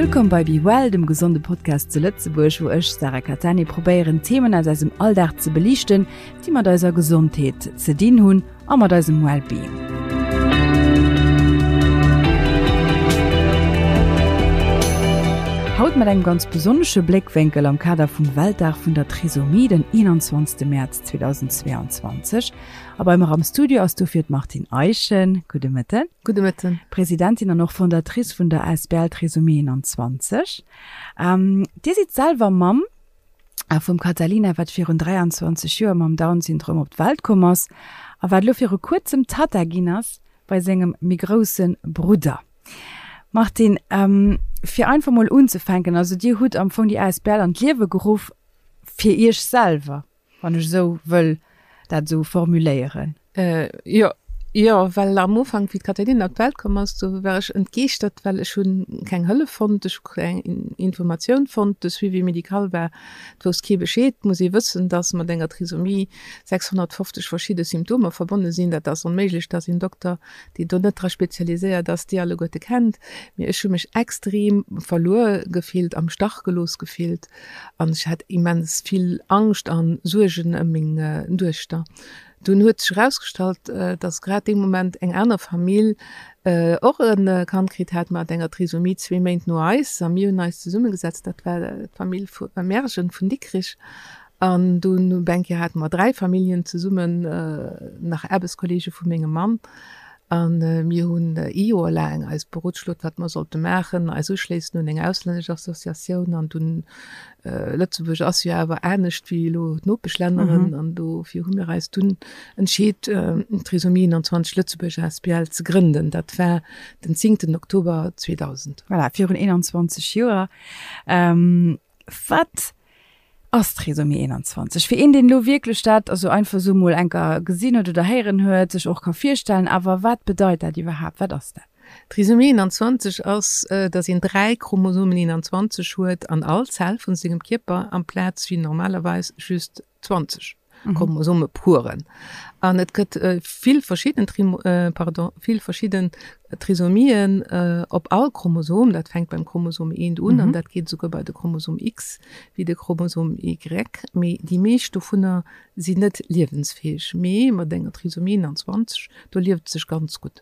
Wëllkomm bei Be Well, dem gesonde Podcast zu Lëtzebuerg, wou ech, Sarah Cattani, probéieren Themen aus eisem Alldag ze beliichten, déi mat eiser Gesondheet ze dinn hunn a mat eisem Wellbeing. Haut mat engem ganz besonnesche Bléckwénkel am Kader vum Weltdag vun der Trisomie, den 21. Mäerz 2022. A bei mer am Studio ass dofir d'Martine Eischen. Gudde Mëtten. Gudde Mëtten. Presidentin an och Fondatrice vun der asbl Trisomie 21. Dir sidd selwer Mamm vum Catalina, wat virun 23 Joer mam Down-Syndrom op d'Welt komm ass a wat elo viru kuerzem Tatta ginn ass bei sengem méi grousse Brudder. Martine, fir einfach mol unzefänken, also Dir hutt am Fong déi asbl an d'Liewe geruff fir Iech selwer. Wann ech esou wëll dat esou formuléieren. Jo, jo, well am Ufank, wéi d'Caterina op d'Welt komm ass, do war ech entgeeschtert, well ech hunn keng Hëllef fonnt, ech hu keng Informatioun fonnt, de Suivi médical war, et wousst kee Bescheed. Et muss ee wëssen, dass mat enger Trisomie 650 verschidde Symptomer verbonne sinn. Dat ass onméiglech, dass een Dokter, deen do net dra spezialiséiert ass, déi alleguerte kennt. Mee ech hu mech extrem verluer gefillt, am Stach gelooss gefillt. An ech hat immens vill Angscht an Suergen ëm meng Duechter. Dunn huet sech erausgestallt, dass grad dee Moment eng aner Famill och e Kand kritt hat mat enger Trisomie, zwee Méint no eis. A mir hunn eis zesummegesetzt, dat war d'Famill vu Mergen vun Dikrich. An dunn op eng Kéier hate mer 3 Familljen zesummen, nach Aarbechtskolleege vu mengem Mann. A mir hunn ee Joer laang eis berotschlot, wat mer sollte maachen, eis uschléissen un eng auslännesch Associatioun. An dunn, Lëtzebuerg ass jo awer anescht wéi elo d'Nopeschlänneren, an dofir hu mir eis dunn entscheet, d'Trisomie 21 Lëtzebuerg asbl ze grënden. Dat war den zéngten Oktober 2000. Voilà, virun 21 Joer. Wat ass Trisomie 21? Fir een, deen elo wierklech dat also einfach esou mol enker gesinn huet oder héieren huet, sech och ka virstellen, awer wat bedeit dat iwwerhaapt? Wat ass dat? Trisomie 21 ass, dass een 3 Chromosomen 21 huet an all Zell vun sengem Kierper, amplaz wéi normalerweis just 20 Chromosomepueren. An et gëtt vill verschidden pardon, vill verschidden Trisomien op all Chromosom. Dat fänkt beim Chromosom 1 un an dat geet esouguer bei de Chromosom X wéi de Chromosom Y. Mee déi meescht dovunner sinn net liewensfäeg. Mee mat enger Trisomie 21, do lieft et sech ganz gutt.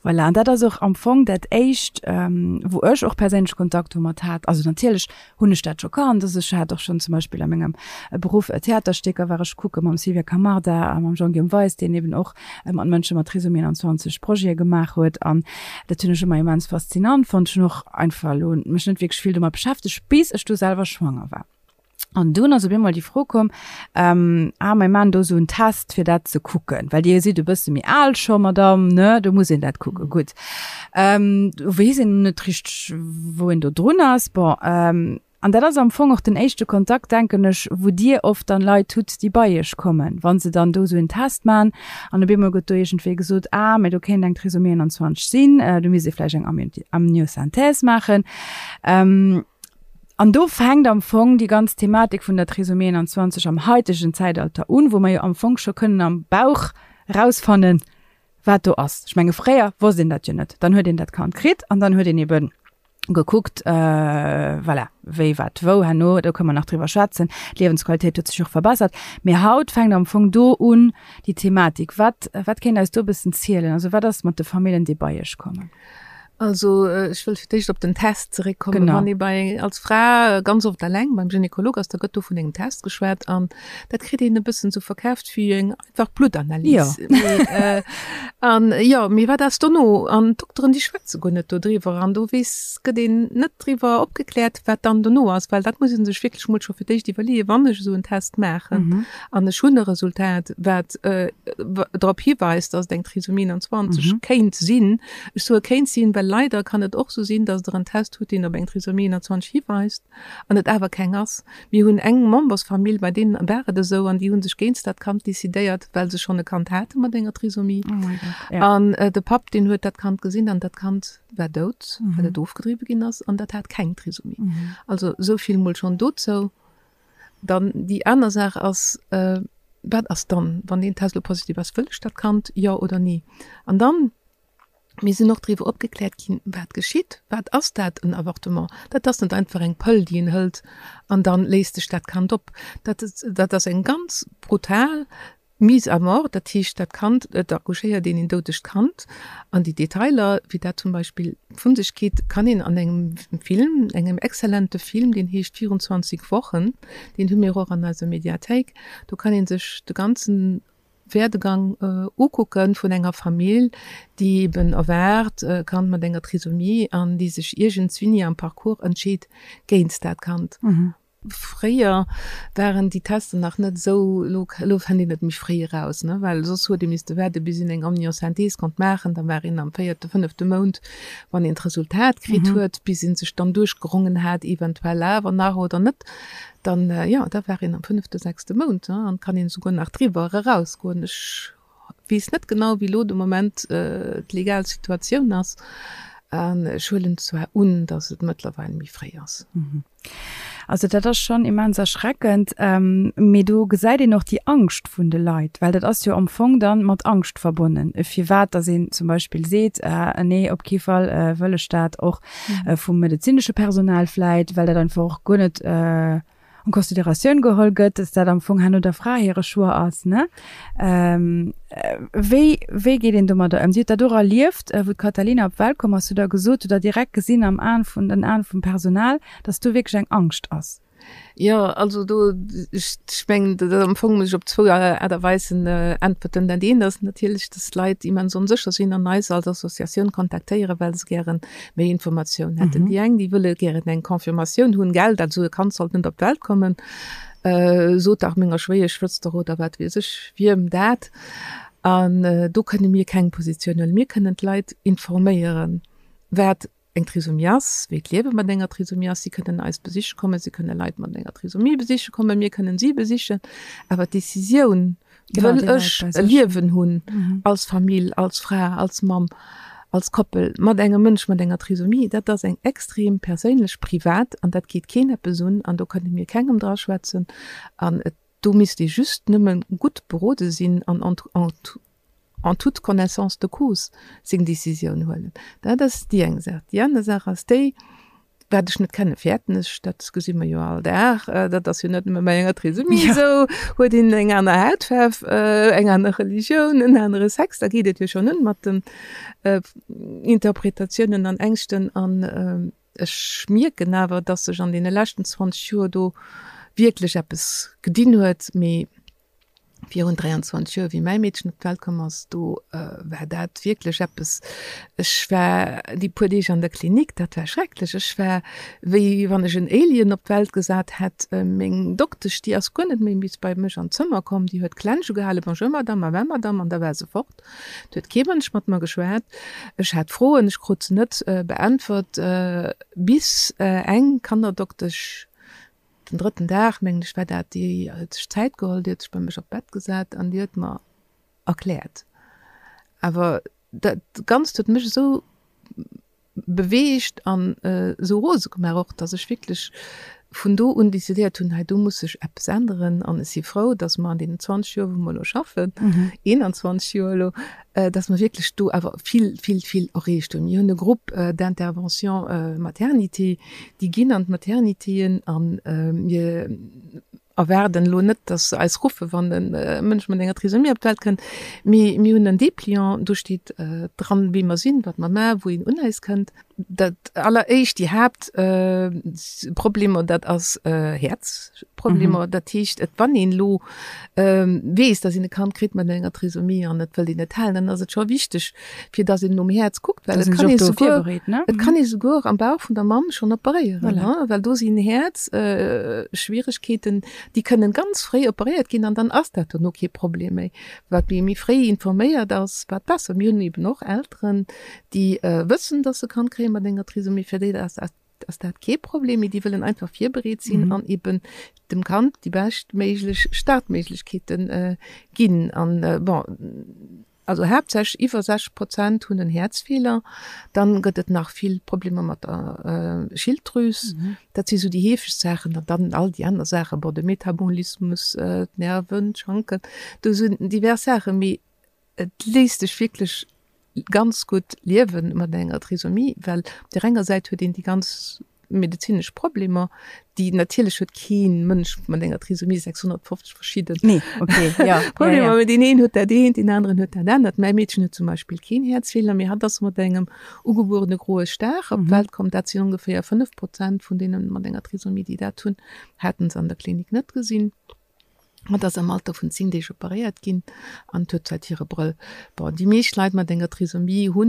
Voilà, an dat ass och am Fong dat Éischt, wou ech och perséinlech Kontakt domat hat. Also natierlech hunn ech dat scho kannt. Also ech hat och schonn zum Beispill a mengem Beruff Theaterstécker war ech kucke mam Sylvia Camarda a mam Jean-Guillaume Weis, deen eben och mat Mënsche mat Trisomie 21 Projete gemaach huet. An dat hunn ech ëmmer immens faszinant fonnt. Ech hunn och einfach elo mech net wierklech vill domat beschäftegt, bis ech du selwer schwanger war. An dunn ass op eemol déi Fro komm, ähm, ah, mir maachen do esou en Test, fir dat ze kucken, well Dir sidd e bësse méi al scho, Madamm, ne, do muss een dat kucken. Gutt. Ähm, do weess een net richteg, wou een do drun ass. Bon, ähm, an dat ass am Fong och den éischte Kontakt, denken ech, wou Dir oft dann Leit hutt, déi bei Iech kommen, wa se dann do esou en Test maachen an op eemol gëtt do iergendwéi gesot, ah, mä do kéint eng Trisomie 21 sinn, do misst ee vläicht eng Amniosynthèse maachen. Ähm, An do fänkt am Fong déi ganz Thematik vun der Trisomie 21 am haitegen Zäitalter un, wou mer jo am Fong scho kënnen am Bauch erausfannen, wat do ass. Ech menge fréier wosst een dat jo net. Dann huet een dat Kand kritt an dann huet een ebe gekuckt, voilà, wéi, wat, wou. Herno, do kënnen mer nach driwwer schwätzen, d'Liewensqualitéit huet sech och verbessert. Mee haut fänkt am Fong do un déi Thematik. Wat, wat kéint eis do e bëssen zielen? Also wat ass mat de Famillen, déi bei Iech kommen? Also ech wëll fir d'éischt op den Test zeréckkommen. Genau. Wann ee bei als Fra ganz oft alleng beim Gynekolog ass, da gëtt do vun engem Test geschwat an dat kritt een e bëssen sou verkaaft wéi eng einfach Bluttanalys. Ja. Mee, äh, an jo, mee wat ass dono? An d'Dokteren, déi schwätze guer net dodriwwer an do weess, gëtt een net driwwer opgekläert, wat dann dono ass, well dat muss ee sech wierklech mol scho fir d'éischt iwwerleeën, wann ech esou en Test maachen an ech hunn e Resultat, wat äh, drop hiweist, dass et eng Trisomie 21 kéint sinn, Ech soe kéint sinn, well leider kann et och sou sinn, dass Der en Test hutt, deen op eng Trisomie 21 hiweist an et awer keng ass. Mir hunn eng Membersfamill, bei deenen war et esou an déi hu sech géinst dat Kand decidéiert, well se schonn e Kand hate mat enger Trisomie. An de Papp, deen huet dat Kand gesinn an dat Kand war dout, well et ofgedriwwe ginn ass an dat hat keng Trisomie. Also esou vill mol schonn dozou. Dann déi aner Saach ass, Wat ass dann, wann deen Test elo positiv ass? Wëll ech dat Kand, jo oder nee? An dann. Mir sinn och driwwer opgekläert ginn, wat geschitt. Wat ass dat, en Avortement? Dat ass net einfach eng Pëll, déi een hëlt an da léist sech dat Kand op. Dat, dat ass eng ganz brutal Mise à mort. Dat heescht, dat Kand, et accouchéiert een een doudegt Kand. An déi Detailer, wéi dat zum Beispill vun sech geet, kann een an engem Film, engem exzellente Film, deen heescht 24 Wochen, deen hu mir och an eiser Mediathéik, do kann ee sech de ganzen Werdegang ukucken vun enger Famill, déi eben erwaart e Kand mat enger Trisomie an déi sech iergendswinni am Parcours entscheet géint dat Kand. Fréier waren déi Tester nach net esou, elo elo fënnt een et méi fréi eraus, ne, well soss huet ee misste waarde bis een eng Amniosynthèse konnt maachen, da war een am véierte, fënnefte Mount, wann een d'Resultat kritt huet, bis ee sech dann duerchgerongen hat, eventuell awer nach oder net. Dann, jo, da war een am fënnefte, sechste Mount, ne, an kann een esouguer nach driwwer erausgoen. Ech weess net genau, wéi elo de Moment d'legal Situatioun ass. An ech huelen zwar un, datt et mëttlerweil méi fréi ass. Also dat ass schonn immens erschreckend. Mee do gesäit een och déi Angscht vun de Leit, well dat ass jo am Fong dann mat Angscht verbonnen, firwat datt een zum Beispill seet, Nee, op kee Fall wëll ech dat och. vum medezinesche Personal vläit, well dat einfach och guer net en Consideratioun geholl gëtt, dass dat am Fong herno der Fra hire Choix ass, ne? Wéi, wéi geet een domadder ëm? Dir hutt dat och erlieft, wou d'Katalina op d'Welt komm ass, hutt Der gesot, hutt Der direkt gesinn am Aen vun, den Aen vum Personal, dass do wierklech eng Angscht ass? Jo, also do, ech mengen, dat am Fong muss ech op zwou Aart a Weisen äntwerten. Dat eent ass natierlech, dass d'Leit immens onsécher sinn an eis als Associatioun kontaktéieren, well se gäre méi Informatioun hätten. Déi eng, déi wëlle gären eng Confirmatioun hunn, gell, dat esou e Kand sollt net op d'Welt kommen, sot dach menger Schwéieschwëster oder wat weess ech wiem dat. An do kënne mir keng Positioun huelen. Mir kënnen d'Leit informéieren, wat eng Trisomie ass, wéi d'Liewe mat enger Trisomie ass. Si kënnen eis besiche kommen, si kënne Leit mat enger Trisomie besiche kommen, mir kënnen si besichen. Awer d'Decisioun, wëll ech e Liewen hunn als Famill, als Fra, als Mamm, als Koppel mat engem Mënsch mat enger Trisomie, dat ass eng extrem perséinlech, privat an dat geet keen eppes un an do kënne mir kengem draschwätzen an et do misst ee just nëmme gutt berode sinn an en toute connaissance de cause seng Décisioun huelen. Dat ass déi eng Saach. Déi aner Saach ass déi, wat ech net kenne fäerten ech, dat gesi mer jo all Dag, dat ass jo net nëmme bei enger Trisomie esou, huet een eng aner Hautfaarf, eng aner Religioun, en anere Sex, da geet et jo schonn un mat den Interpretatiounen an Ängschten. An ech mierken awer, datt sech an deene leschten 20 Joer do wierklech eppes gedinn huet, mee Virun 23 Joer, wéi mäi Meedchen op d'Welt komm ass, do war dat wierklech eppes, ech war déi puer Deeg an der Klinik, dat war schrecklech. Ech war wéi wann ech en Alien op d'Welt gesat hätt. Meng Doktesch, déi ass guer net méi bis bei mech an d'Zëmmer komm, déi huet d'Klensch ugehalen, Bonjour Madame, au revoir Madame, an da war se fort. Et huet kee Mënsch mat mer geschwat. Ech hat Froen, ech krut se net beäntwert, bis eng Kannerdoktesch, Den drëtten Dag, mengen ech, war dat, déi huet sech Zäit geholl, déi huet sech bei mech op d'Bett gesat an déi huet mer erkläert. Awer dat Ganzt huet mech esou beweegt an esou rose gemaach och, datt ech wierklech vun do un decidéiert hunn, hei do muss sech eppes änneren. An ech si frou, datt mer an deenen 20 Joer, wou mer elo schaffen, 21 Joer elo, datt mer wierklech do awer vill, vill, vill erreecht hunn. Mir hunn e Groupe d'intervention maternité, Déi ginn an d'Maternitéen a mir erwaarden elo net, datt se eis ruffen, wann e Mënsch mat enger Trisomie op d'Welt kënnt. Mee mir hunn en Dépliant, do steet dran, wie mer sinn, wat mer maachen, wou een un eis kënnt. Dat alleréischt, déi Haaptproblemer, dat ass Häerzproblemer. Dat heescht, et wann een elo weess, datt een e Kand kritt mat enger Trisomie an et wëllt een et halen, dann ass et scho wichteg, fir dass een nom Häerz kuckt, well et kann ee souguer, et kann ee souguer am Bauch vun der Mamm schonn operéieren, voilà. Well do sinn Häerzschwieregkeeten, déi kënnen ganz fréi operéiert ginn an dann ass dat dono kee Problem méi. Wat méi méi fréi informéiert ass, wat besser. Mir hunn eben och Elteren, déi wëssen, dass se Kand kréie mat enger Trisomie, fir déi ass dat ass dat kee Problem, mee déi wëllen einfach virbereet sinn an eben dem Kand déi beschtméiglech Startméiglechkeete ginn. An bon, Also haaptsächlech iwwer 60 Prozent hunn en Häerzfeeler. Dann gëtt et nach vill Problemer mat der Schilddrüs. Dat si sou déi heefegst Saachen. An dann all déi aner Saachen, bon, de Metabolismus, d'Nerven, d'Schanken, do sinn divers Saachen. Mee et léisst sech wierklech. ganz gutt liewe mat enger Trisomie, well op där enger Säit huet een déi ganz medezinesch Problemer, déi natierlech huet kee Mënsch mat enger Trisomie 650 verschidden nee, okay, ja, Problemer, ja, ja. deen een huet dat eent, deen aneren huet dat anert. Mäi Meedchen huet zum Beispill keen Häerzfeeler, mee hatt ass mat engem ugebuerene groe Star op d'Welt komm. Dat sinn ongeféier 5 Prozent vun deene mat enger Trisomie, déi dat hunn, haten se an der Klinik net gesinn. Hatt ass am Alter vun 10 Deeg operéiert ginn an huet säit hire Brëll. Bon, déi meescht Leit mat enger Trisomie hu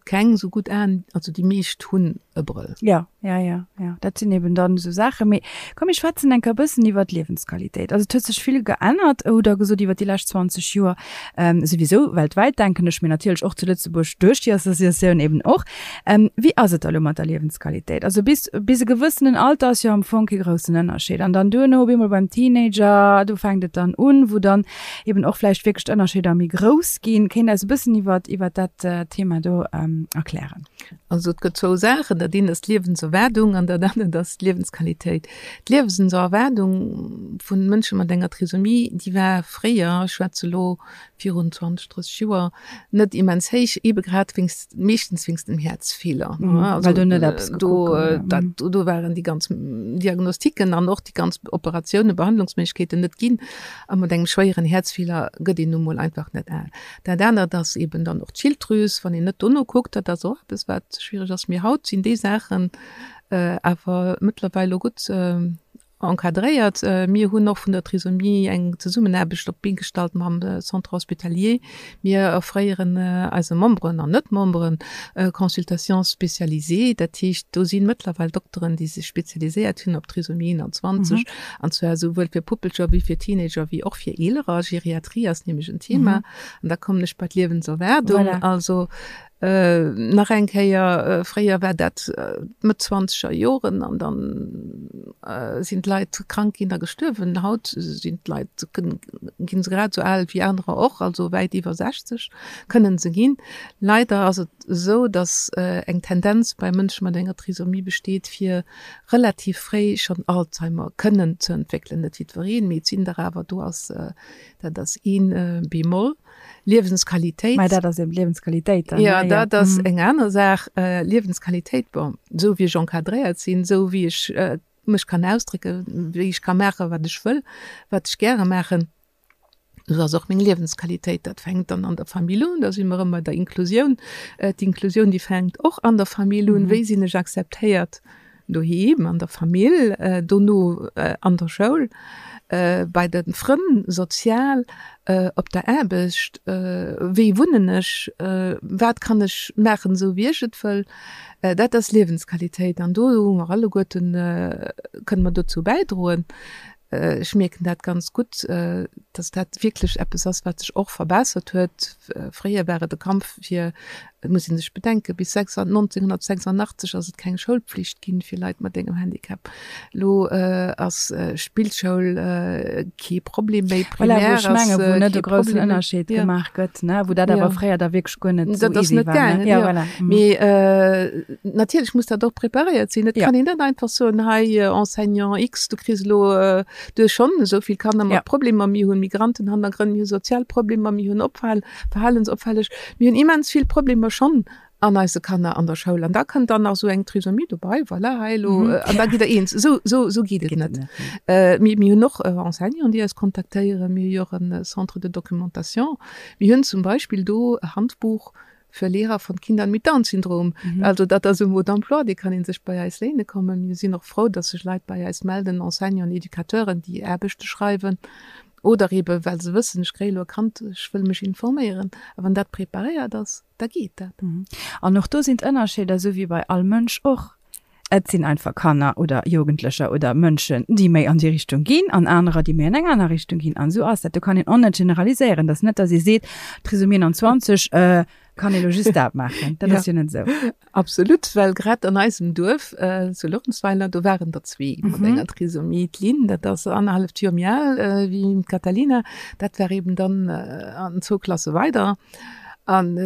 keng sou gutt Aen, also déi meescht hunn e Brëll. Jo, jo, jo, jo, dat sinn eben dann esou Saachen. Mee komm, mir schwätzen eng Kéier e bëssen iwwer d'Liewensqualitéit. Also et huet sech vill geännert, hutt Der gesot, iwwer déi lescht 20 Joer, souwisou weltwäit, denken ech, mee natierlech och zu Lëtzebuerg duerch déi Associatioun eben och. Wéi ass et da lo mat der Liewensqualitéit? Also bis, bis e gewëssenen Alter ass jo am Fong kee groussen Ënnerscheed. An dann duerno op eemol beim Teenager, do fänkt et dann un, wou dann eben och vläicht wierklech d'Ënnerscheeder méi grouss ginn. Kéint Der eis e bëssen iwwer, iwwer dat Thema do erklären? Also et gëtt zwou Saachen, Dat eent ass d'Liewenserwaardung an dat anert ass d'Liewensqualitéit. D'Liewenserwaardung vu Mënsche mat enger Trisomie, déi war fréier, ech schwätze lo virun 20, 30 Joer, net immens héich, ebe grad wéinst, meeschtens wéinst dem Häerzfeeler. Mhm, also, well do net eppes do, dat, mhm. do waren déi ganz Diagnostiken an och déi ganz Operatiounen, Behandlungsméiglechkeeten net ginn. A mat engem schwéieren Häerzfeeler gëtt een nu mol einfach net al. Dat anert ass eben dann och d'Schilddrüs, wann een net dono kuckt, dat ass och eppes, wat schwierig ass. Mee haut sinn déi Saachen äh, awer mëttlerweil lo gutt äh, Encadréiert. Mir hunn och vun der Trisomie eng Zesummenaarbecht op d'Been gestallt mam Centre hospitalier. Mir offréieren eise Memberen an Net-Memberen Consultations spécialisées. Dat heescht, do si mëttlerweil Dokteren, déi sech spezialiséiert hunn op Trisomie 21, an zwar esouwuel fir Puppelcher wéi fir Teenager wéi och fir Eelerer. Geriatrie ass nämlech en Thema. An da kommen ech bei d'Liewenserwaardung. Also Nach eng Kéier, fréier war dat d'Mëtt zwanzeger Joren an dann sinn d'Leit krank ginn a gestuerwen. Haut sinn d'Leit, ginn se grad esou al wéi anerer och, also wäit iwwer 60 kënnen se ginn. Leider ass et esou, datt eng Tendenz bei Mënsche mat enger Trisomie besteet, fir relativ fréi schonn Alzheimer kënnen ze entwéckelen. Net jiddwereen, mee et sinn der awer. Do ass, dat ass ee Bémol. Liewensqualitéit. Mä dat ass eben d'Liewensqualitéit dann. Ja, dat ass eng aner Saach. Liewensqualitéit, bon, esou wéi ech encadréiert sinn, esou wéi ech mech kann ausdrécken, wéi ech ka maachen, wat ech wëll, wat ech gäre maachen, esou ass och meng Liewensqualitéit. Dat fänkt dann an der Famill un, da si mer erëm bei der Inklusioun. D'Inklusioun, déi fänkt och an der Famill un. Wéi sinn ech akzeptéiert? Doheem an der Famill, dono an der Schoul, bei de Frënn, sozial, op der Aarbecht, wéi wunnen ech, wat kann ech maachen, esou wéi ech et wëll. Dat ass Liewensqualitéit an do hu mer alleguerten, kënne mer dozou bäidroen. Ech mierken dat ganz gutt, dass dat wierklech eppes ass, wat sech och verbessert huet. Fréier war et e Kampf fir, et muss ee sech bedenken, bis 1986 ass et keng Schoulpflicht ginn fir Leit mat engem Handicap. Elo ass Spillschoul kee Problem méi, Primaire ass kee Problem méi. Voilà, wou ech mengen, wou net e groussen Ënnerscheed gemaach gëtt, ne, wou dat awer fréier da wierklech guer net esou easy war, ne? Ja, voilà. Mee natierlech muss dat och preparéiert sinn. Et kann een net einfach soen, hei Enseignant X, du kriss elo, du hues schonn esou vill Kanner mat Problemer, mir hunn Migrantenhannergrënn, mir hu sozial Problemer, mir hunn Opfal, verhalensopfälleg, mir hunn immens vill Problemer schonn an eise Kanner an der Schoul. An da kënnt dann nach esou eng Trisomie dobei, voilà, hei elo, an da gitt Der eens. Esou, esou, esou geet et net. Mir, mir hunn och Enseignanten, déi eis kontaktéieren. Mir hu jo och e Centre de documentation. Mir hunn zum Beispill do e Handbuch Für Lehrer von Kindern mit Down-Syndrom. Also dat ass e Mode d'emploi, dee kann ee sech bei eis léine kommen. Mir sinn och frou, dass sech Leit bei eis melden, Enseignanten, Educateuren, déi Aarbechte schreiwen oder eebe well se wëssen, ech kréie elo e Kand, ech wëll mech informéieren. A wann dat preparéiert ass, da geet dat. An och do sinn d'Ënnerscheeder, esou wéi bei all Mënsch och. Et sinn einfach Kanner oder Jugendlecher oder Mënschen, déi méi an déi Richtung ginn an anerer, déi méi an eng aner Richtung ginn. An esou ass dat. Do kann een och net generaliséieren. Et ass net, datt ee seet, Trisomie 21 kann ee lo just dat maachen. Dat ass jo net esou. Absolut, well grad an eisem Duerf zu Luerenzweiler, do waren der zwee mat enger Trisomie. D'Lynn, dat ass annerhalleft Joer méi al wéi d'Catalina, dat war eben dann an zwou Klasse weider. An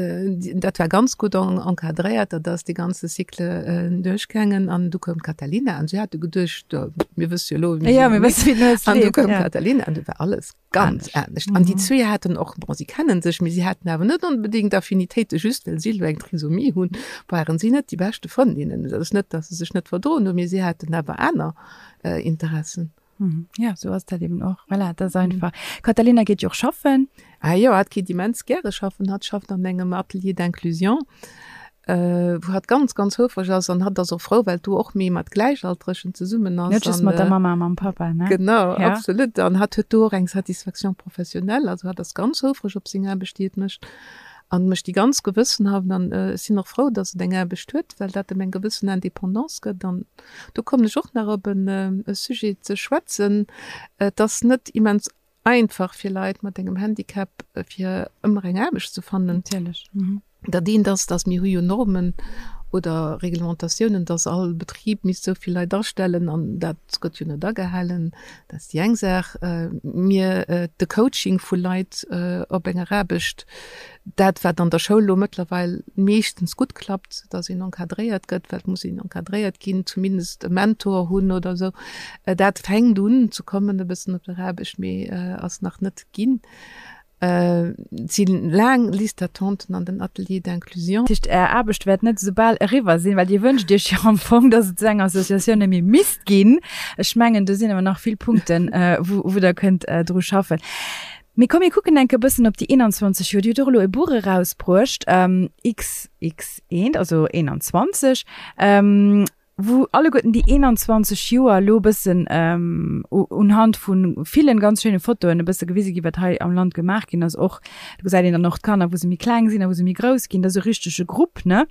dat war ganz gutt encadréiert, dat ass dee ganze Cycle duerchgaangen. An du koum d'Katalina an si hate geduecht, mir wësse jo elo, wéi mir An du koum d'Katalina an du war alles ganz anescht. An déi zwee haten och, bon, si kennen sech, mee si haten awer net onbedéngt Affinitéite, just well si elo eng Trisomie hunn, waren si net déi beschte Frëndinnen. Dat ass net, datt se sech net verdroen hunn, mee si haten awer aner Interessen. Ja, sou ass dat eben och. Voilà, dat ass einfach. D'Katalina geet jo och schaffen. Ah jo, hatt geet immens gäre schaffen. Hatt schafft an engem Atelier d'inclusion, wou hatt ganz, ganz houfreg ass. An hatt ass och frou, well do och méi mat Gläichaltregen zesummen ass. Net just mat der Mamma a mam Pappa, ne? Genau, absolut. An hatt huet do och eng Satisfaction professionnelle. Also hatt ass ganz houfreg op seng Aarbecht, déi et mécht. An mécht déi ganz gewëssenhaft. An ech sinn och frou, dass et eng Aarbecht huet, well dat em eng gewëssen Indépendance gëtt. An do kommen ech och nach op e Sujet ze schwätzen. Et ass net immens einfach fir Leit mat engem Handicap, fir ëmmer eng Aarbecht ze fannen. Natierlech. Dat eent ass, dass mir hu jo Normen oder Reglementatiounen, dass all Betrib misst esou vill Leit astellen, an dat gëtt jo net agehalen. Dat ass déi eng Saach. Mir, de Coaching vu Leit op enger Aarbecht, dat wat an der Schoul elo mëttlerweil meeschtens gutt klappt, dass een encadréiert gëtt, well et muss een encadréiert ginn, zumindest e Mentor hunn oder esou, dat fänkt un ze kommen e bëssen op der Aarbecht, mee ass nach net ginn. Et si laang Listes d'attenten an den Ateliers d'inclusion. Dat heescht, Är Aarbecht wäert net esou bal eriwwer sinn, well Dir wënscht Iech jo am Fong, dass et esou eng Associatioun net méi misst ginn. Ech mengen, do sinn awer nach vill Punkten, wou Der kënnt dru schaffen. Mee komm, mir kucken enke bëssen op déi 21 Joer. Dir hutt och elo e Buch erausbruecht, XX1, also 21, wou alleguerten déi 21 Joer elo e bëssen unhand vu villen ganz schéine Fotoen e bësse gewise ginn, wat hei am Land gemaach ginn ass. Och do gesäit een dann och d'Kanner, wou se méi kleng sinn a wou se méi grouss ginn. Dat ass e richtege Grupp, ne?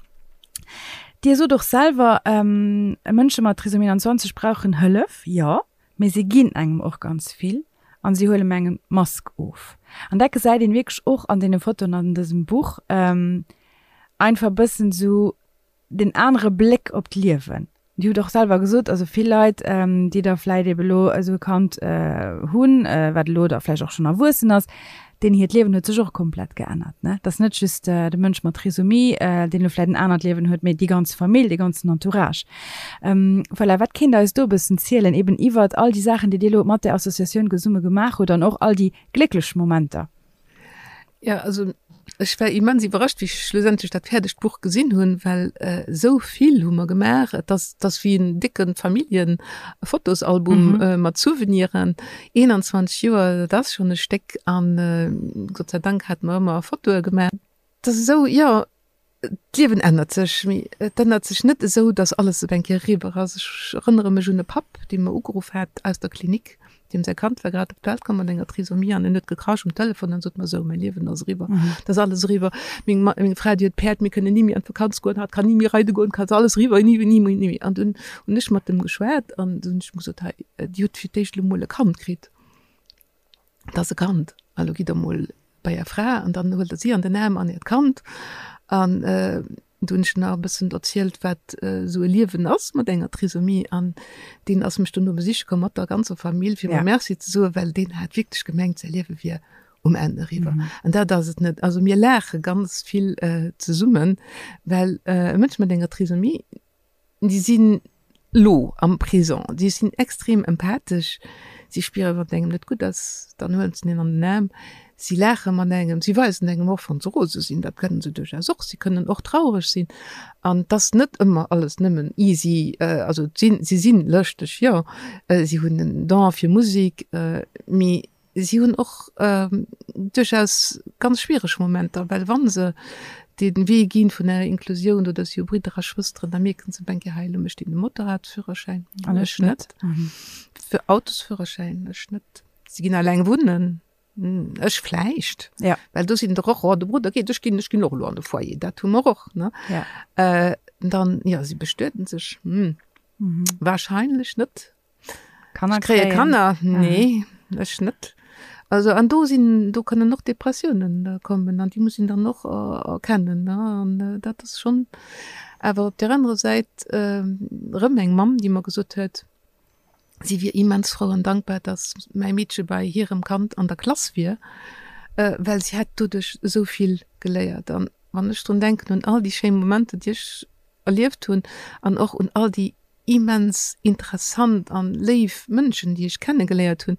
Dir sot och selwer, Mënsche mat Trisomie 21 brauchen Hëllef, jo. Mee si ginn engem och ganz vill an si huelen engem d'Mask of. An dat gesäit een wierklech och an deene Fotoen an dësem Buch, einfach e bëssen esou den anere Bléck op d'Liewen. Dir hutt och selwer gesot, also vill Leit, déi da vläit ebe lo esou e Kand hunn, wat elo da vläicht och schonn erwuessen ass, Deenen hiert Liewen huet sech och komplett geännert, ne? Et ass net just de Mënsch mat Trisomie, deen elo vläit en anert Liewen huet, mee déi ganz Famill, dee ganzen Entourage. Voilà, wat kéint Der eis do e bëssen zielen, eben iwwert all déi Saachen, déi Dir elo mat där Associatioun gesumme gemaach hutt an och all déi glécklech Momenter? Jo, also ech war immens iwwerrascht, wéi ech schlussendlech dat fäerdegt Buch gesinn hunn, well esou vill hu mer gemaach. Et ass, et ass wéi en décke Familljen-Fotosalbum mat Souveniren. 21 Joer, dat ass schonn e Stéck an Gott sei Dank hate mer ëmmer Fotoe gemaach. Et ass esou, jo, d'Liewen ännert sech, mee et ännert sech net esou, datt alles op eng Kéier eriwwer ass. Ech erënnere mech un e Papp, dee mer ugeruff hat aus der Klinik, deem säi Kand war grad op d'Welt komm mat enger Trisomie an en huet gekrasch um Telefon an sot mer, Sou, mäi Liewen ass eriwwer, et ass alles eriwwer, meng meng Fra, déi huet Päerd, mir kënnen ni méi an d'Vakanz goen, hatt kann ni méi reide goen, et ass alles eriwwer, ni méi, ni méi, ni méi. An dunn hunn ech mat em geschwat an dunn hunn ech em gesot, Hei, Dir hutt fir d'éischt elo mol e Kand kritt, et ass e Kand, a lo gitt Der mol bei Är Fra an dann huelt Der si an den Aarm an Äert Kand. An du hunn ech nach e bëssen erzielt, wat esou e Liewen ass mat enger Trisomie. An deen ass mech dono besiche komm mat der ganzer Famill, fir mer Merci ze soen, well deen hat wierklech gemengt, säi Liewe wier um Enn eriwwer. An dat ass et net. Also mir laache ganz vill zesummen, well e Mënsch mat enger Trisomie, Déi sinn lo am Présent, déi sinn extrem empathesch, si spieren, wann et engem net gutt ass, dann huelen se een an den Aarm, si laache mat engem, si weisen engem och, wann se rose sinn, dat kënnen se duerchaus och, si kënnen och traureg sinn an et ass net ëmmer alles nëmmen easy. Also et sinn, si sinn lëschteg, jo, si hunn en Don fir Musek, mee Si hunn och duerchaus ganz schwiereg Momenter, well wa se dee Wee gi vun der Inklusioun oder si hu Bridder a Schwësteren, da mierken se op eng Kéier, hei elo mécht deen de Motorradführerschäin an ech net, fir Autosführerschäin, ech net. Si ginn alleng wunnen, ech vläicht, well do sinn der och, oh de Brudder geet, ech ginn, ech ginn och elo an de Foyer, dat hu mer och, ne. Dann, jo, si bestueden sech, wahrscheinlech net. Kanner Ech kréie Kanner, nee, ech net. Also an do sinn, do kënnen och Depressiounen kommen an déi muss een dann och erkennen, ne. An dat ass schonn awer op där anerer Säit erëm eng Mamm, déi mer gesot huet, si wier immens frou an dankbar, datt mäi Meedche bei hirem Kand an der Klass wier. well si hätt doduerch esou vill geléiert. An wann ech drun denken, un all déi schéi Momenter, déi ech erlieft hunn an och un all déi immens interessant an léif Mënschen, déi ech kennegeléiert hunn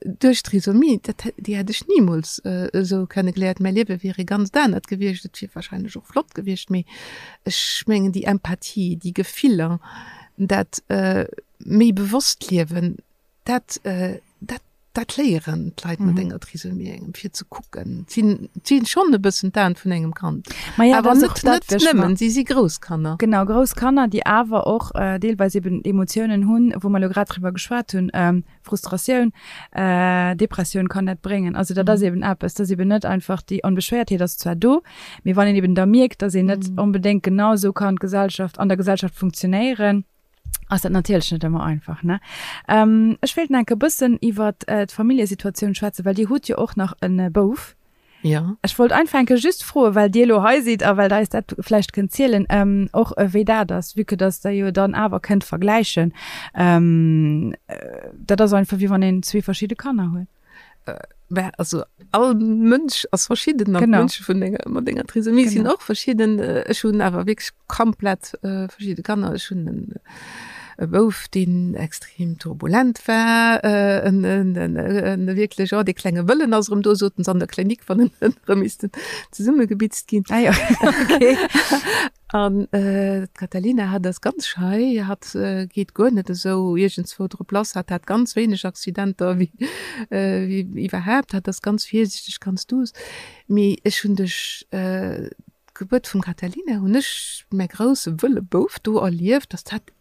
duerch Trisomie, dat, déi hätt ech nimools esou kennegeléiert. Mäi Liewe wier e ganzt anert gewiescht. Et wier wahrscheinlech och flott gewiescht, mee ech mengen déi Empathie, déi Gefiller, dat méi bewosst Liewen, Dat, dat, dat léieren d'Leit mat enger Trisomie engem, fir ze kucken. Sinn, sinn schonn e bëssen d'Aen vun engem Kand. Ma ja, Awer dat ass net, och dat, net wéi ech mer. nëmmen, si si grouss Kanner. Genau, grouss Kanner, déi awer och deelweis eben Emotiounen hunn, wou mer elo grad driwwer geschwat hunn, Frustratioun, Depressioun kann dat bréngen. Also dat ass eben eppes, dat ass eben net einfach, déi Onbeschwéiertheet ass zwar do, mee wann een eben da mierkt, datt een net onbedéngt genau esou kann d'Gesellschaft, an der Gesellschaft funktionéieren, ass dat natierlech net ëmmer einfach, ne? Ech wéilt nach enke bëssen iwwer d'Familljesituatioun schwätzen, well Dir hutt jo och nach e Bouf. Jo. Ech wollt einfach enke just froen, well Dir elo hei sidd a well Der eis dat vläicht kënnt zielen, och wéi dat ass, vue que dass Der jo dann awer kënnt vergläichen. Dat ass einfach wéi wann een zwee verschidde Kanner huet. Mä also all Mënsch ass verschidden an d'Mënsche vun enger, mat enger Trisomie sinn och verschidden. Ech hunn awer wierklech komplett verschidde Kanner. Ech hunn en e Bouf, deen extrem turbulent war, en en wierklech, oh dee klenge Wëllen ass erëm do, soten se an der Klinik, wann en erëm missten zesummegebitzt ginn. Ah jo, okay. An d'Catalina, hatt ass ganz schei, hatt geet guer net esou iergendswou drop lass, hatt hat ganz wéineg Accidenter wéi iwwerhaapt, hatt ass ganz virsiichteg, ganz duuss. Mee ech hunn duerch d'Gebuert vum Catalina hunn ech mäi grousse wëlle Bouf do erlieft, dass dat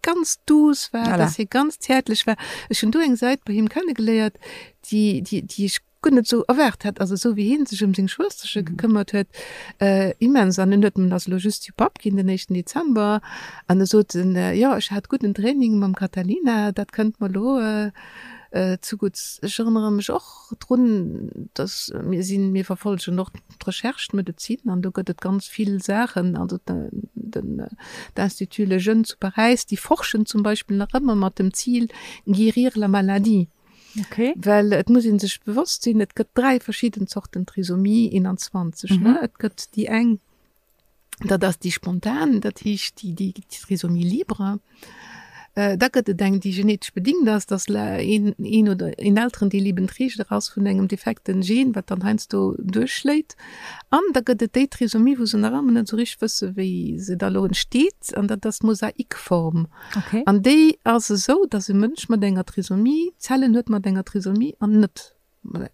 ganz duuss war, dass hie ganz zäertlech war. Ech hunn do eng Säit bei him kennegeléiert, déi ech guer net esou erwaart hat, also esou wéi hien sech ëm seng Schwësterche gekëmmert huet, immens. An en huet, en ass elo just jo Papp ginn den éischten Dezember, an e sot en, jo ech hat gudden Training mam Catalina, dat kënnt mer elo zugutts. Ech erënnere mech och drun, datt mir sinn, mir verfollegen och d'Recherche, d'Medezin, an do gëtt et ganz vill Saachen, also den d'Institut Lejeune zu Paräis, déi forschen zum Beispill nach ëmmer mat dem Zil guérir la maladie. Okay. Well et muss ee sech bewosst sinn, et gëtt 3 verschidden Zorten Trisomie 21. Mhm. Ne? Et gëtt déi eng, dat ass déi spontan, dat heescht déi, déi Trisomie libre. Äh, da gëtt et eng, déi genetesch bedingt ass, dass een, een oder een Elterendeel eben Träger ass vun engem defekten Gen, wat dann heiansdo duerchschléit. An da gëtt et déi Trisomie, wou se nach ëmmer net esou richteg wësse wéi se da elo entsteet, an dat ass d'Mosaikform. Okay. An déi ass esou, dass e Mënsch mat enger Trisomie Zellen huet mat enger Trisomie an net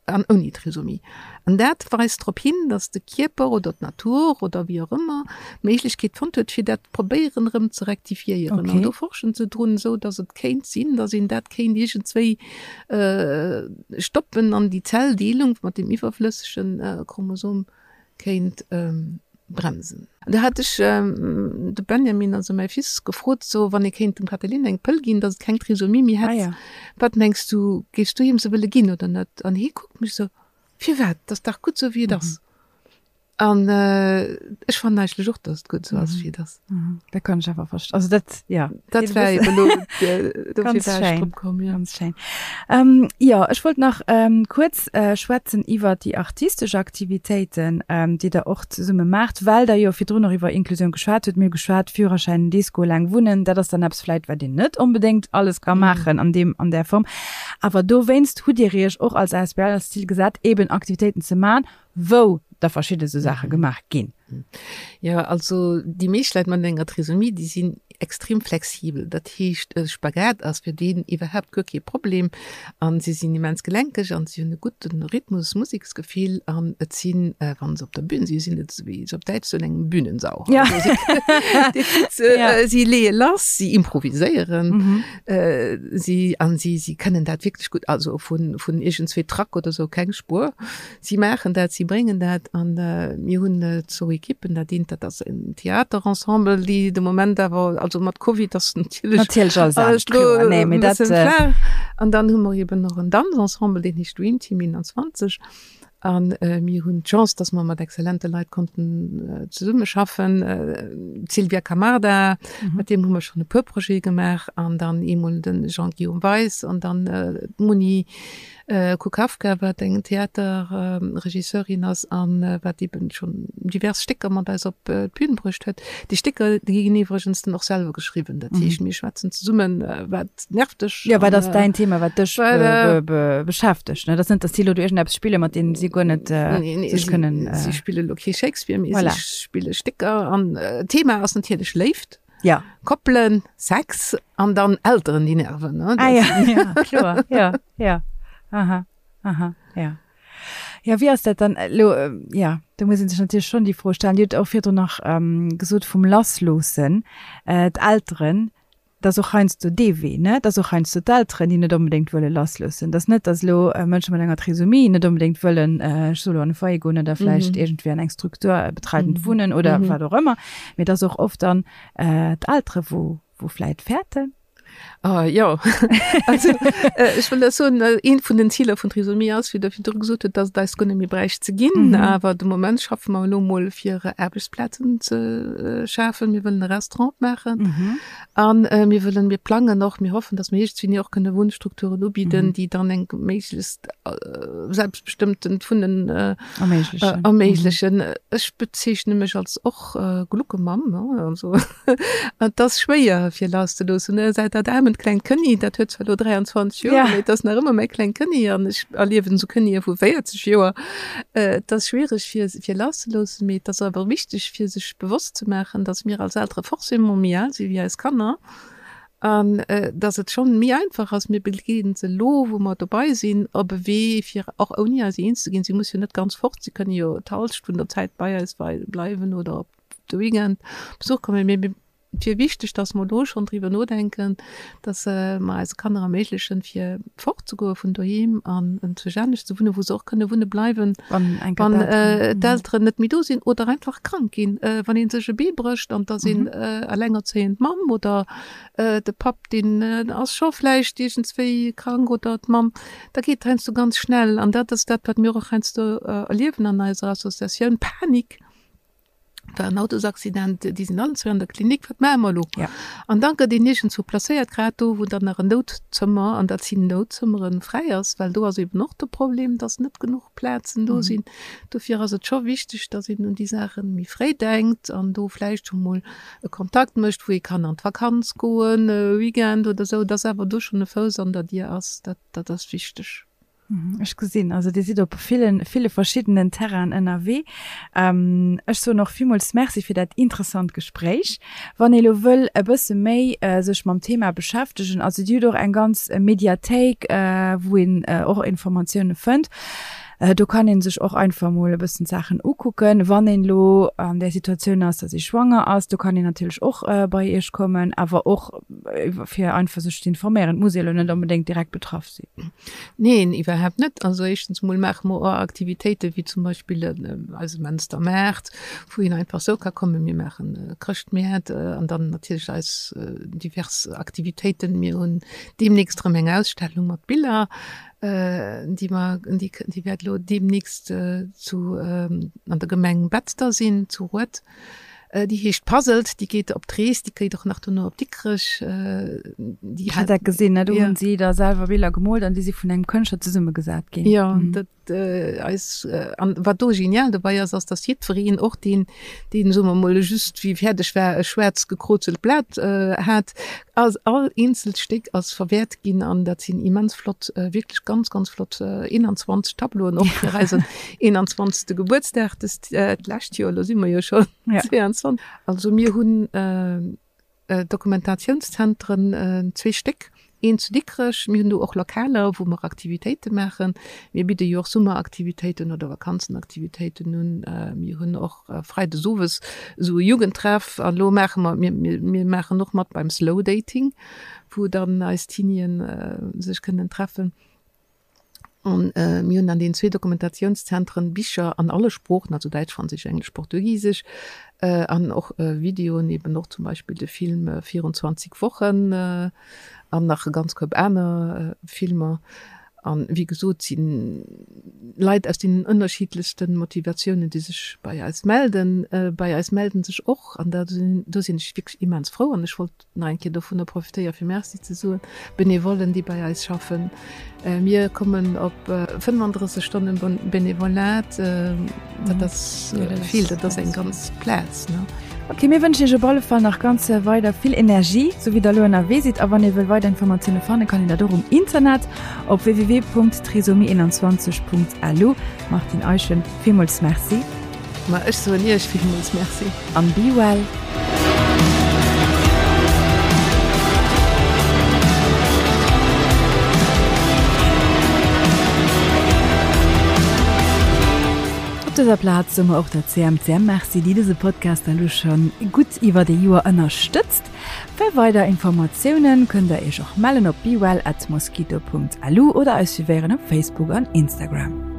an ouni Trisomie. An dat weist drop hin, dass de Kierper oder d'Natur oder wéi och ëmmer d'Méiglechkeet fonnt huet, fir dat probéieren erëm ze rektifiéieren. An Okay. do forschen se drun, esou dass et kéint sinn, dass een dat kéint iergendswéi stoppen an déi Zelldeelung mat deem iwwerflëssege Chromosom kéint bremsen. An do hat ech de Benjamin, also mäi Fils, gefrot, so wann ee kéint dem Catheline eng Pëll ginn, datt et keng Trisomie méi hätt, wat mengs du, géifs du him se wëlle ginn oder net? An hie kuckt mech esou, Firwat? Et ass dach gutt esou wéi et ass. An ech fannen eigentlech och, datt et gutt esou ass wéi et ass. Dat kann ech awer verstoen. Also dat, ja. Dat war eben elo, dofir war ech drop komm, ja. Ganz schéin. Ähm, jo, ech wollt nach ähm, kuerz äh, schwätzen iwwer déi artistesch Aktivitéiten, ähm, déi Der och zesumme maacht, well Der jo virdrun och iwwer Inklusioun geschwat hutt. Mir hu geschwat, Führerschäin, Disco, laang wunnen, dat ass dann eppes vläit, wat een net onbedéngt alles ka maachen an deem, an där Form. Awer dowéinst hutt Dir Iech och als asbl als Zil gesat, eeben Aktivitéiten ze maachen, wou da verschidde sou Saache gemaach ginn. Jo, also déi meescht Leit mat enger Trisomie, déi sinn extrem flexibel. Dat heescht, e Spagat ass fir deen iwwerhaapt guer kee Problem an si sinn immens gelenkeg an si hunn e gudde Rhythmus, Museksgefill an et sinn, wa se op der Bühn sinn, sinn et, wéi se op Däitsch soen, eng Bühnensau. Ja. Also si leeë lass, si improviséieren, si an si si kënnen dat wierklech gutt, also vun vun iergendzwee Trac oder sou keng Spuer. Si maachen dat, si bréngen dat an mir hunn zwou Ekippen, dat eent dat ass en Theaterensemble, déi de Moment awer, also mat Covid ass natierlech Natierlech alles anescht, kloer, nee, mee dat. An dann hu mer eben och en Danzensemble, deen heescht Dream Team 21 a mir hunn d'Chance, datt mer mat exzellente Leit konnten zesummeschaffen, d'Sylvia Camarda, mat deem hu mer schonn e puer Projete gemaach an dann eemol de Jean-Guillaume Weis an dann d'Moni. Kukafka, wat eng Theaterregisseurin ass an wat eben schonn divers Stécker mat eis op d'Bün bruecht huet. Déi Stécker, déi ginn iwwregens dann och selwer geschriwwen. Dat heescht, mir schwätzen zesummen, wat nervt dech? Jo, wat ass däin Thema, wat dech beschäftegt? Dat ass net, datt si elo do iergendeppes spillen, mat deem si guer net sech kënnen. Si spille elo kee Shakespeare, mee si spille Stécker an d'Thema ass natierlech Léift. Ja. Koppelen, Sex an dann Elteren, déi nerven. Ne? Ah, ja, ja, kloer. Ja, ja. Aha, aha, ja. Ja, wéi ass dat dann elo? Ja, do muss ee sech natierlech schonn déi Fro stellen. Dir hutt och virdrun nach ähm, gesot vum Lassloossen, äh, d'Elteren, dat ass och heiansdo dee Wee, ne? Dat ass och heiansdo d'Elteren, déi net onbedéngt wëlle lassloossen. Dat ass net, datt elo äh, Mënsche mat enger Trisomie net onbedéngt wëllen, äh, ech soe lo an e Foyer goen oder vläicht mhm. iergendwéi an eng Struktur äh, betreitend mhm. wunnen oder mhm. wat och ëmmer. Mee et ass och oft dann d'Eltere wou wou vläit fäerten. Ah, jo, also ech wëll dat soen, eent vun den Ziler vun Trisomie ass, wéi Der virdru gesot hutt, dass et eis guer net méi bräicht ze ginn. Mhm. Awer de Moment schaffe mer elo mol fir Aarbechtsplazen ze schafen. Mir wëllen e Restaurant opmaachen. Mhm. An mir wëllen, mir plangen och, mir hoffen, dass mir iergendwéini och kënne Wunnstrukturen ubidden, mhm. déi dann eng méiglechst selbstbestëmmtent Wunnen erméiglechen. Erméiglechen. Mhm. Ech bezeechne mech als och Gluckemamm, also et ass schwéier fir lasszeloossen, ne? Säit dat aarment klengt Kënni, dat huet zwar elo 23 Joer, mee et ass nach ëmmer mäi klengt Kënni an ech erliewen esou Kënnie vu 40 Joer. Et ass schwiereg fir fir lasszeloossen, mee et ass awer wichteg fir sech bewosst ze maachen, datt mir als Eltere forcément méi al si wéi eis Kanner An dass et schonn méi einfach ass, mir begleeden se elo, wou mer dobei sinn, op e Wee, fir och ouni eis eens ze ginn. Si musse jo net ganz fort, si kënne jo d'Hallschent vun der Zäit bei eis bleiwen oder op de Weekend Besuch kommen. Mee et wier wichteg, dass mer elo schonn driwwer nodenken, dass mer eise Kanner erméiglechen, fir fortzegoe vun doheem an enzwousch anescht ze wunnen, wou se och kënne wunne bleiwen, wann d'Elteren net méi do sinn oder einfach krank ginn. Wann ee sech e Bee brécht an et ass een elengerzéiend Mamm oder de Papp, deen ass scho vläicht iergendswéi krank oder d'Mamm, da geet et heiansdo ganz schnell. An dat ass dat, wat mir och heiansdo erliewen an eiser Associatioun, Panik. war en Autosaccident, déi sinn allen zwee an der Klinik, wat maache mer elo? Ja. An da gëtt een iergendzwou placéiert, grad do, wou dann nach en Noutzëmmer, an dat sinn Noutzëmmeren, fräi ass, well do ass eben och de Problem, dass net genuch Plazen do sinn. Dofir ass et scho wichteg, dass een un déi Saache méi fréi denkt an do vläicht scho mol e Kontakt mécht, wou ee kann an d'Vakanz goen, e Weekend oder esou, dass awer do schonn e Fouss an der Dier ass, dat, dat ass wichteg. Ech gesinn, also Dir sidd op villen, ville verschiddenen Terrainen ënnerwee. Ech soen och villmools Merci fir dat interessant Gespréich. Wann ee lo wëll e bësse méi sech mam Thema beschäftegen, also Dir hutt och eng ganz Mediathéik, wou een och Informatioune fënnt. Do kann ee sech och einfach mol e bëssen d'Saachen ukucken. Wann een elo an där Situatioun ass, datt ee schwanger ass, do kann een natierlech och bei Iech kommen, awer och fir einfach sech ze informéieren. Et muss ee lo net onbedéngt direkt betraff sinn. Neen, iwwerhaapt net. Also éischtens emol maache mer och Aktivitéiten, wéi zum Beispill eise Menster Maart, wou een einfach esou ka kommen. Mir maachen Chrëschtmäert an dann natierlech eis divers Aktivitéiten. Mir hunn deemnächst erëm eng Ausstellung mat Biller, déi mer, déi wäert elo deemnächst zu an der Gemeng Betzder sinn, zu Rued. Déi heescht Puzzled, déi geet op d'Rees, déi geet och nach dono op Dikrech. Déi hat dat gesinn, ne? Do hunn si da selwer Biller gemoolt an déi si vun engem Kënschtler zesummegesat ginn. Jo, dat eis an wat do genial dobäi ass, ass datt jiddwereen, och deen, deen, soe mer mol, just wéi fäerdeg war, e schwaarz gekrozelt Blat hat, ass all eenzelt Stéck ass verwäert ginn an dat sinn immens flott, wierklech ganz, ganz flott 21 Tableauen och fir eisen 21. Gebuertsdag dëst d'lescht Joer, elo si mer jo schonn 22. Also mir hunn Dokumentationszentren, zwee Stéck, een zu Dikrech, mir hunn do och Lokaler, wou mer Aktivitéite maachen. Mir bidde jo och Summeraktivitéiten oder Vakanzenaktivitéiten un. Mir hunn och freides owes esou e Jugendtreff an elo maache mer, mir, mir maachen och mat beim Slow Dating, wou dann eis Teenien sech kënnen treffen. An mir hunn an deenen zwee Dokumentationszentren Bicher an alle Sproochen, also Däitsch, Franséisch, Englesch, Portugisesch, an och Videoen, eben och zum Beispill de Film 24 Wochen an nach e ganz Koup aner Filmer. An wéi gesot si Leit aus deenen ënnerschiddlechste Motivatiounen, déi sech bei eis melden. Bei eis melden sech och, an da do sinn ech wierklech immens frou an ech wollt nach eng Kéier dovunner profitéiere fir Merci ze soen, Benevollen, déi bei eis schaffen. Mir kommen op 35 Stonnen Benevolat, dat ass vill, dat ass eng ganz Plaz. Ok, mir wënschen iech op alle Fall nach ganz weider vill Energie, sou wéi der elo ënnerwee sidd. A wann ee wëll weider Informatioune fannen, kann een dat och um Internet op www.trisomie21.lu. Martine Eischen, villmools Merci. Ma ech soen iech villmools Merci. An be well. Op dëser Plaz soe mer och der CMCM Merci, déi dëse Podcast elo schonn gutt iwwert ee Joer ënnerstëtzt. Fir weider Informatiounen kënnt der iech och mellen op bewell@mosquito.lu oder eis suivéieren op Facebook an Instagram.